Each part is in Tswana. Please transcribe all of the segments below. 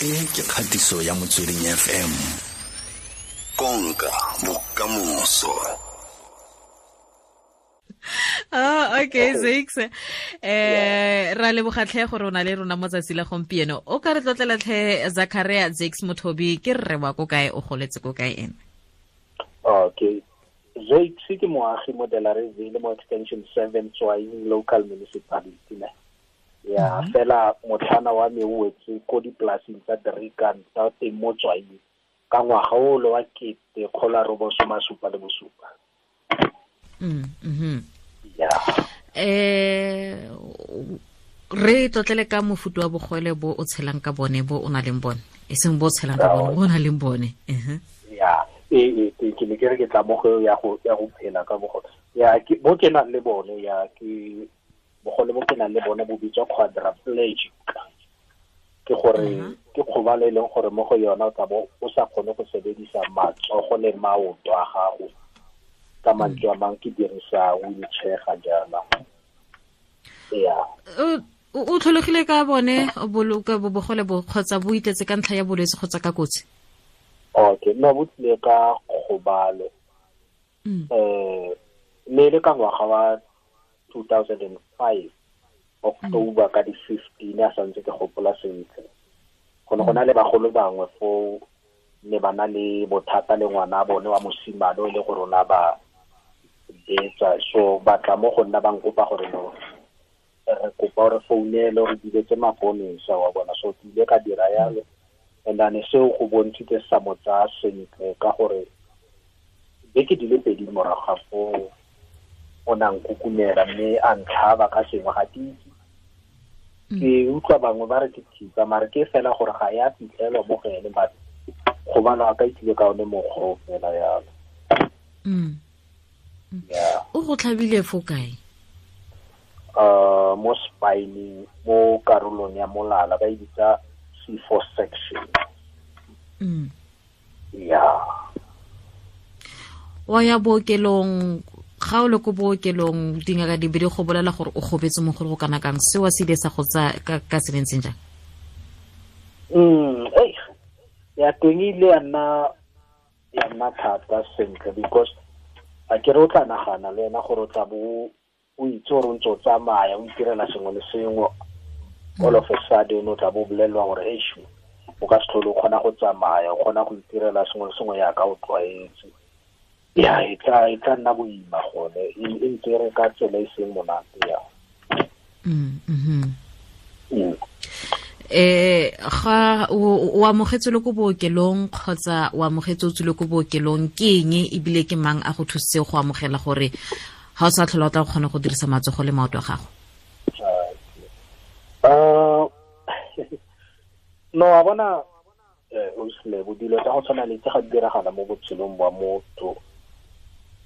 E ke kgatiso ya Motsweding FM. Konka bokamoso. Oh, okay, Zakes. Ra leboga tlhe gore o na le rona mo tsatsi la gompieno. O ka re tlotlela tlhe Zachariah Zakes Mothobi, ke rre wa ko kae, o goletse ko kae ene? Okay. Zakes ke moagi mo Delareyville mo Extension 7 Tswaing Local Municipality ne. Ya, fela motlhana wa me o wetse ko dipolasing tsa Driekant tsa teng mo Tswaing ka ngwaga o le wa 1977. Ya. Re tlotlele ka mofuta wa bogole bo o tshelang ka bone, bo o nang le bone, e seng bo o tshelang ka bone, bo o nang le bone. Ya, ke ne ke re ke tla mo go ya go phela ka bogole. Ya, ke bo ke nang le bone, ya ke bogole bo ke nang le bone bo bitswa quadriplegic. Ke gore ke kgobalo e leng gore mo go yona o tla bo o sa kgone go sebedisa matsogo le maoto a gago. Ka mantswe a mang ke dirisa wheelchair ga jaana. Ya. O tlholegile ka bone bogole bo kgotsa bo itletse ka ntlha ya bolwetse kgotsa ka kotsi? Okay, no, bo tlile ka kgobalo. Ne le ka ngwaga wa 2005 October ka di 15, a santse ke gopola sentle. Go ne go na le bagolo bangwe foo ne ba na le bothata le ngwana bone wa mosimane o e le gore ona ba betsa, so ba tla mo go nna ba nkopa gore no re kopa gore founele re biletse maponesa wa bona, so ke ile ka dira yalo. And then seo go bontshitse sa mo tsaya sentle ka gore beke di le pedi morago ga foo o na nkukumela mme a ntlhaba ka sengwe, ga ke itse. Ke utlwa bangwe ba re ke thipa, mare ke fela gore ga ya fitlhelwa mo go ene, but kgobalo a ka itlile ka one mokgwa o fela yalo. Yeah. O go tlhabile fo kae? Mo spineng, mo karolong ya molala, ba e bitsa C4 section. Yeah. Wa ya bookelong, ga o le ko bookelong dingaka di be di go bolela gore o gobetse mo go kana kang, seo se ile sa go tsaya ka se ntseng jang? Ya teng ile ya nna thata sentle, because a ke re o tla nagana le wena gore o tla bo o itse gore o ntse o tsamaya o itirela sengwe le sengwe, all of a sudden o tla bo bolelelwa gore eish, o ka se tlhole o kgona go tsamaya, o kgona go itirela sengwe le sengwe yaka o tlwaetse. Ya, e tla nna boima gone, e ntse re ka tsela e seng monate ya. Ga o amogetse le ko bookelong kgotsa o amogetse o tswile ko bookelong, ke eng ebile ke mang a go thusitse go amogela gore ga o sa tlhola o tla kgona go dirisa matsogo le maoto a gago? No, a bona o sele dilo tsa go tshwana le tse ga di diragala mo botshelong bwa motho,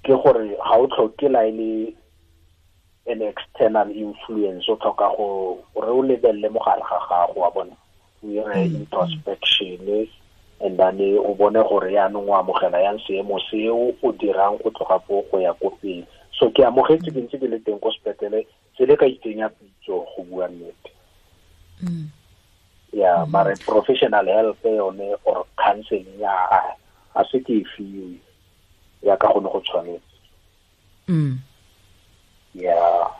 ke gore ga o tlhoke la e le an external influence, o tlhoka go re o lebelele mo gare ga gago wa bona, o dire introspection and then o bone gore yaanong o amogela yang seemo seo o dirang go tloga foo go ya ko pele. So ke amogetse ke ntse ke le teng ko sepetlele, se le ka itsenya pitso go bua nnete. Ya, mare professional help yone or counseling ya a se ke e fiwe ya ka gone go tshwanetse. Ya.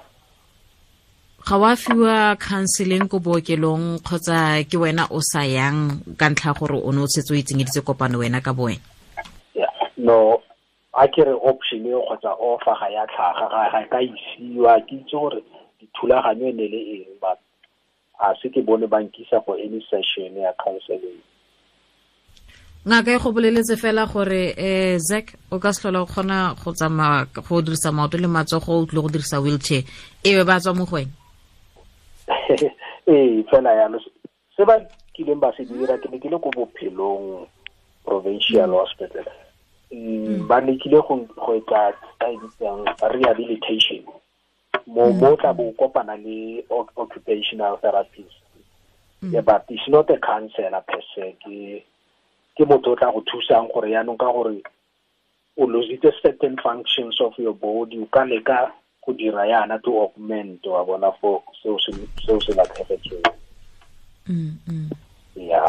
Ga wa fiwa counseling ko bookelong kgotsa ke wena o sa yang ka ntlha gore o ne o setse o itsenyeditse kopano wena ka bo wena? Yeah. No, a ke re option eo kgotsa offer ga ya tlhaga, ga ka isiwa, ke itse gore dithulaganyo e ne le eng, but a se ke bone ba nkisa for any session ya counseling. Ngaka e go boleletse fela gore Zac o ka se tlhola o kgona go tsamaya go dirisa maoto le matsogo, o tlile go dirisa wheelchair, e be ba tswa mo go wena? Ee, fela yalo. Se ba kileng ba se dira, ke ne ke le ko Bophelong Provincial Hospital. Ba lekile go etsa ka e bitsang rehabilitation. Mo tla bo kopana le occupational therapist. Yeah, but it's not a counselor per se, ke motho o tla go thusang gore yaanong ka gore o lositse certain functions of your body, o ka leka go dira yana to augment wa bona for seo se latlhegetsweng. Yeah.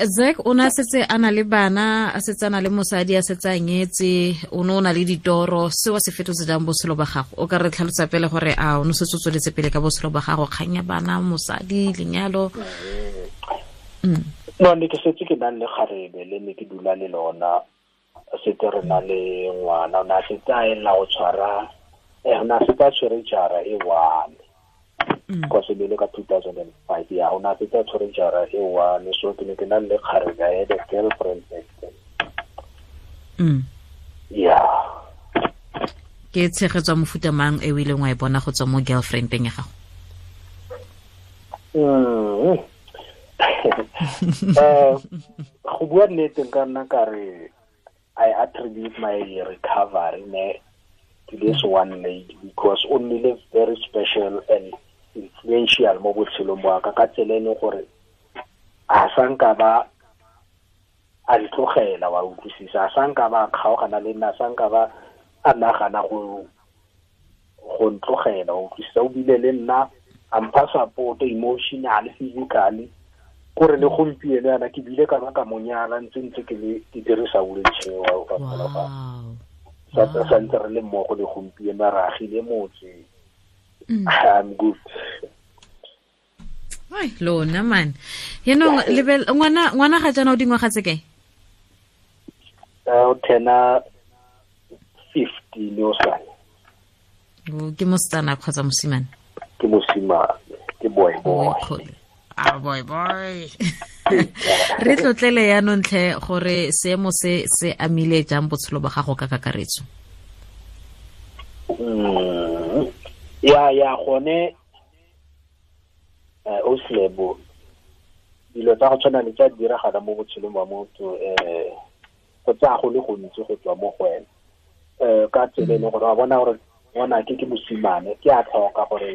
Zack o na setse a na le bana, a setse a na le mosadi, a setse a nyetse, o ne o na le ditoro, seo se fetotse jang botshelo ba gago? O ka re tlhalosa pele gore a o ne setse o tsweletse pele ka botshelo ba gago, kgang ya bana, mosadi, lenyalo? No, ne ke setse ke nang le kgarebe le ne ke dula le lona, setse re na le ngwana, o ne a setse a elela go tshwara, o ne a setse a tshwere jara e one. Because e le ka 2005, ya, o ne a setse a tshwere jara e one, so ke ne ke na le kgarebe, I had a girlfriend back then. Yeah. Ke tshegetso ya mofuta mang e o ileng wa e bona go tswa mo girlfriendeng ya gago? Go bua nnete nka nna ka re I attribute my recovery ne to this one lady, because o nnile very special and influential mo botshelong ba ka, ka tsela e leng gore a sa nka ba a ntlogela, wa utlwisisa, a sa nka ba kgaogana le nna, a sa nka ba a nagana go ntlogela, wa utlwisisa. O bile le nna a mpha support emotionally, physically, kore le gompieno yana ke bile ka ba ka mo nyala ntse ke le ke dirisa wheelchair, wa sa ntse re le mmogo le gompieno, re agile motse. I'm good. Ai, lona man. Yaanong lebel ngwana ga jaana o dingwaga tse kae? O tena 15 o sane. Ke mosetsana kgotsa mosimane? Ke mosimane, ke boy boy. Ah, boy boy. Re tlotlele yaanong tlhe gore seemo se se amile jang botshelo ba gago ka kakaretso? Ya gone o slebo dilo tsa go tshwana le tsa diragala mo botshelong ba motho, go tsaya go le gontsi go tswa mo go wena, ka tsela e leng gore wa bona gore ngwana ke mosimane, ke a tlhoka gore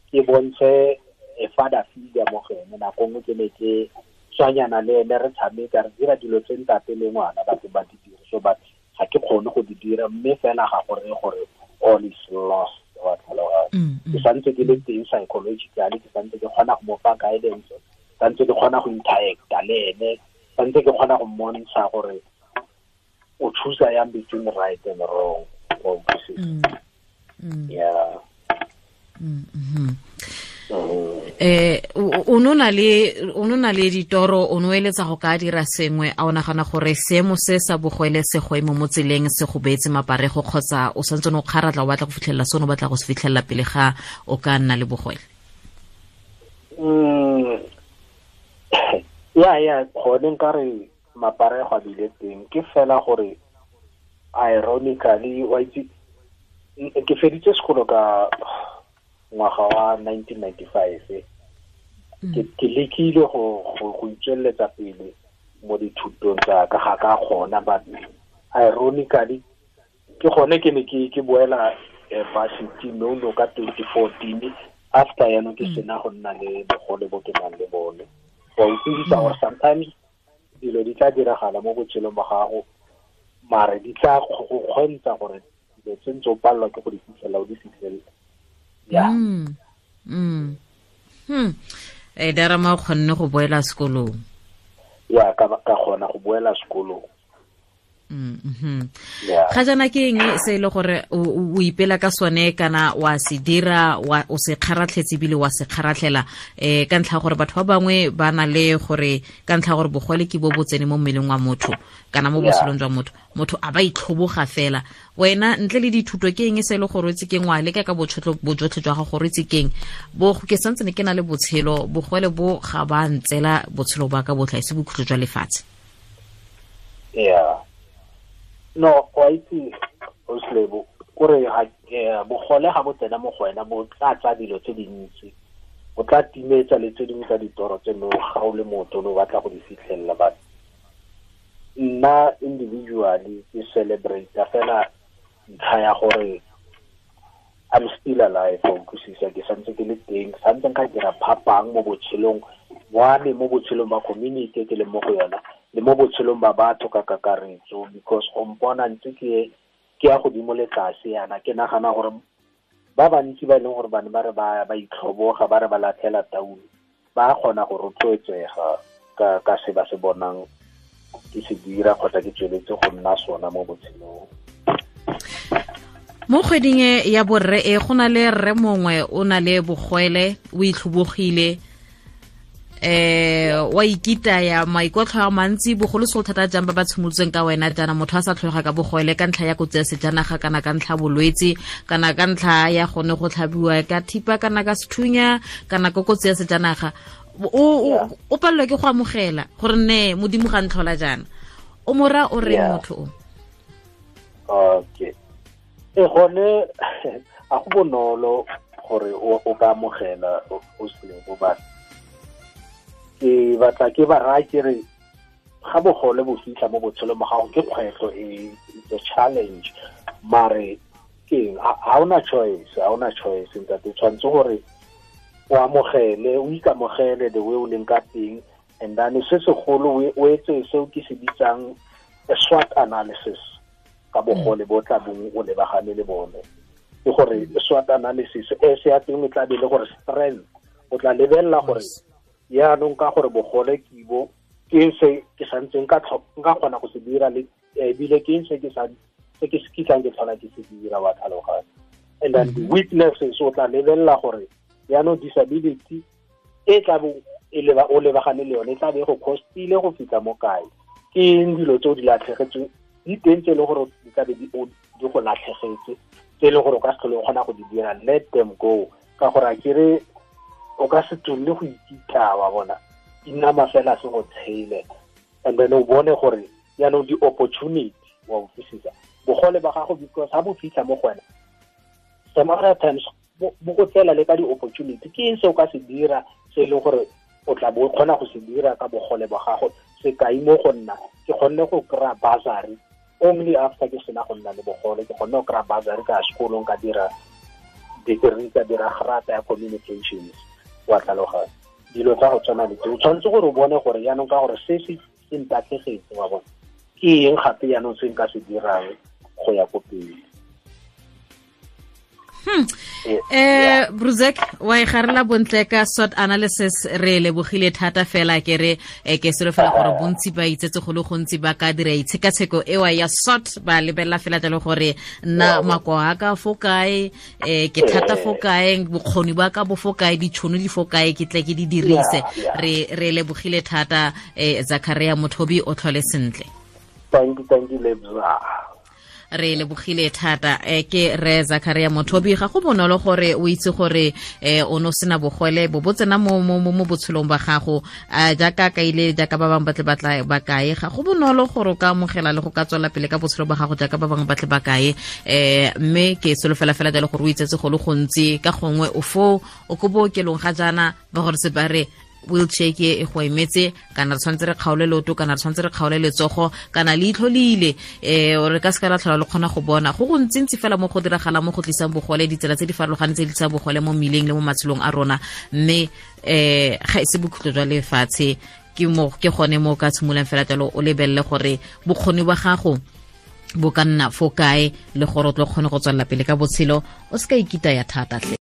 ke bontshe e father figure mo go ene. Nako nngwe ke ne ke tswanyana le ene, re tshameka, re dira dilo tse ntate le ngwana batho ba di dire, so but ga ke kgone go di dira, mme fela ga gore gore all is lost, wa tlhaloganya. Ke santse ke le teng psychologically, ke santse ke kgona go mo fa guidance, santse ke kgona go interacta le ene, santse ke kgona go mmontsha gore o choose yang between right and wrong. Yeah. O nona le ditoro, o no eletsa go ka dira sengwe, a o nagana gore seemo se sa bogwele se go emo mo tseleng se go beetse maparego, kgotsa o santse o kgaratla o batla go fitlhelela sone o batla go se fitlhelela pele ga o ka nna le bogwele? Ya gone nka re maparego a bile teng, ke fela gore ironically wa itse ke feditse sekolo ka ngwaga wa 1995, ke lekile go itsweletsa pele mo dithutong tsa ka, ga ka kgona, but ironically ke gone ke ne ke boela varsity no ka 2014, after yaanong ke sena go nna le bogole bo ke nang le bone. Wa utlwisisa gore sometimes dilo di tla diragala mo botshelong ba gago, mare di tla go kgontsha gore dilo tse ntse o palelwa ke go di fitlhela o di fitlhele. Yeah. Darama o kgonne go boela sekolong? Ya, ka kgona go boela sekolong. Ga jaana ke eng se e le gore o ipela ka sone, kana wa se dira, o se kgaratlhetse ebile wa se kgaratlhela, ka ntlha gore batho ba bangwe ba na le gore ka ntlha gore bogole ke bo bo tsene mo mmeleng wa motho kana mo botshelong jwa motho, motho a ba itlhoboga fela. Wena ntle le dithuto ke eng se e le gore o itse keng, wa leka ka bojotlhe jwa gago gore o itse keng, bo ke santse ne ke na le botshelo, bogole bo ga ba ntsela botshelo ba ka botlha, e se bokhutlo jwa lefatshe? Yeah. No, wa itse o slebo kore bogole ga bo tsena mo go wena bo tla tsa dilo tse dintsi, bo tla timetsa le tse dingwe tsa ditoro tse no ga o le motho o batla go di fitlhelela. But nna individually ke celebrate fela ntlha ya gore I'm still alive, o utlwisisa, ke santse ke le teng, santse nka dira phapang mo botshelong wa me, mo botshelong ba community ke le mo go yona, le mo botshelong ba batho ka kakaretso, because go mpona ntse ke ya godimo le tlase yana, ke nagana gore ba bantsi ba e leng gore bane ba re ba itlhoboga, ba re ba latlhela taolo, ba kgona go rotloetsega ka se ba se bonang ke se dira kgotsa ke tsweletse go nna sona mo botshelong. Mo kgweding e ya borre e go na le rre mongwe o na le bogwele, o itlhobogile, wa ikitaya maikotlho a mantsi, bogolosegolo thata jang ba ba tshimolotseng ka wena jaana, motho a sa tlholega ka bogwele ka ntlha ya kotsi ya sejanaga kana ka ntlha bolwetse kana ka ntlha ya gone go tlhabiwa ka thipa kana ka sethunya kana ko kotsi ya sejanaga, o palelwa ke go amogela gore ne modimo ga ntlhola jaana. O mora o reng motho o? Okay. E gone a go bonolo gore o ka amogela o se bo ba. Ke batla ke ba raya ke re ga bogole bo fitlha mo botshelong ba gago ke kgwetlho e, it's a challenge, mare ke ha ona choice, ha ona choice ntate, tshwanetse gore o amogele, o ikamogele the way o leng ka teng. And then se segolo o etse seo ke se bitsang a SWOT analysis ka bogole bo tla bong o lebagane le bone. Ke gore SWOT analysis e se ya teng e tla be le gore strength, o tla lebelela gore yaanong ka gore bogole ke bo ke se ke santseng nka kgona go se dira, le ebile ke se ke sa se ke se kitlang ke tlhola ke se dira, wa tlhaloganya. And then the weaknesses, o tla lebelela gore yaanong disability e tla bo e leba o lebagane le yone e tla be go costile go fitlha mo kae, ke eng dilo tse o di latlhegetsweng di teng tse e leng gore di tla be di go latlhegetse, tse e leng gore o ka se tlhole o kgona go di dira, let them go, ka gore a kere o ka se tswelele go ikitla, wa bona inama fela se go tshele. And then o bone gore yaanong di-opportunity wa utlwisisa bogole ba gago, because ha bo fitlha mo go wena some other times bo go tsela le ka di-opportunity. Ke eng se o ka se dira se e leng gore o tla bo o kgona go se dira ka bogole ba gago? Sekai mo go nna, ke kgonne go kry-a bursary only after ke sena go nna le bogole. Ke kgonne go kry-a bursary ka sekolong, ka dira degree, ka dira grata ya communications, wa tlhaloganya. Dilo tsa go tshwana le tse o tshwanetse gore o bone gore yaanong ka gore se se ntatlhegetse, wa bona, ke eng gape yaanong se nka se dirang go ya ko pele. Bruzek, wa e garela bontle ka SWOT analysis, re lebogile thata fela. Ke re ke solofela gore bontsi ba itsetse go le gontsi ba ka dira itshekatsheko ewa ya SWOT, ba lebelela fela jalo gore nna makoa a ka fo kae, ke thata fo kae, bokgoni ba ka bo fo kae, ditšhono di fo kae, ke tle ke di dirise. Re lebogile thata, Zachariah Mothobi, o tlhole sentle. Thank you Lebza. Re lebogile thata. Ke re Zachariah Mothobi. Ga go bonolo gore o itse gore o no sena bogole bo bo tsena mo mo botshelong ba gago, jaaka kaile jaaka ba bangwe batle batla ba kae. Ga go bonolo gore o ka amogela le go ka tswela pele ka botshelo ba gago jaaka ba bangwe batle ba kae, mme ke solofela fela jalo gore o itsetse go le gontsi. Ka gongwe o fo o ko bookelong ga jaana ba gore se ba re wheelchair ke e go emetse, kana re tshwanetse re kgaole leoto, kana re tshwanetse re kgaole letsogo, kana leitlho le ile, re ka se ka la tlhola le kgona go bona. Go go ntsintsi fela mo go diragala mo go tlisang bogole, ditsela tse di farologaneng tse di tlisang bogole mo mmileng le mo matshelong a rona, mme ga e se bokhutlo jwa lefatshe. Ke mo ke gone mo ka tshimolang fela jalo o lebelele gore bokgoni ba gago bo ka nna fo kae le gore o tlo kgone go tswelela pele ka botshelo, o se ka ikitaya thata tle.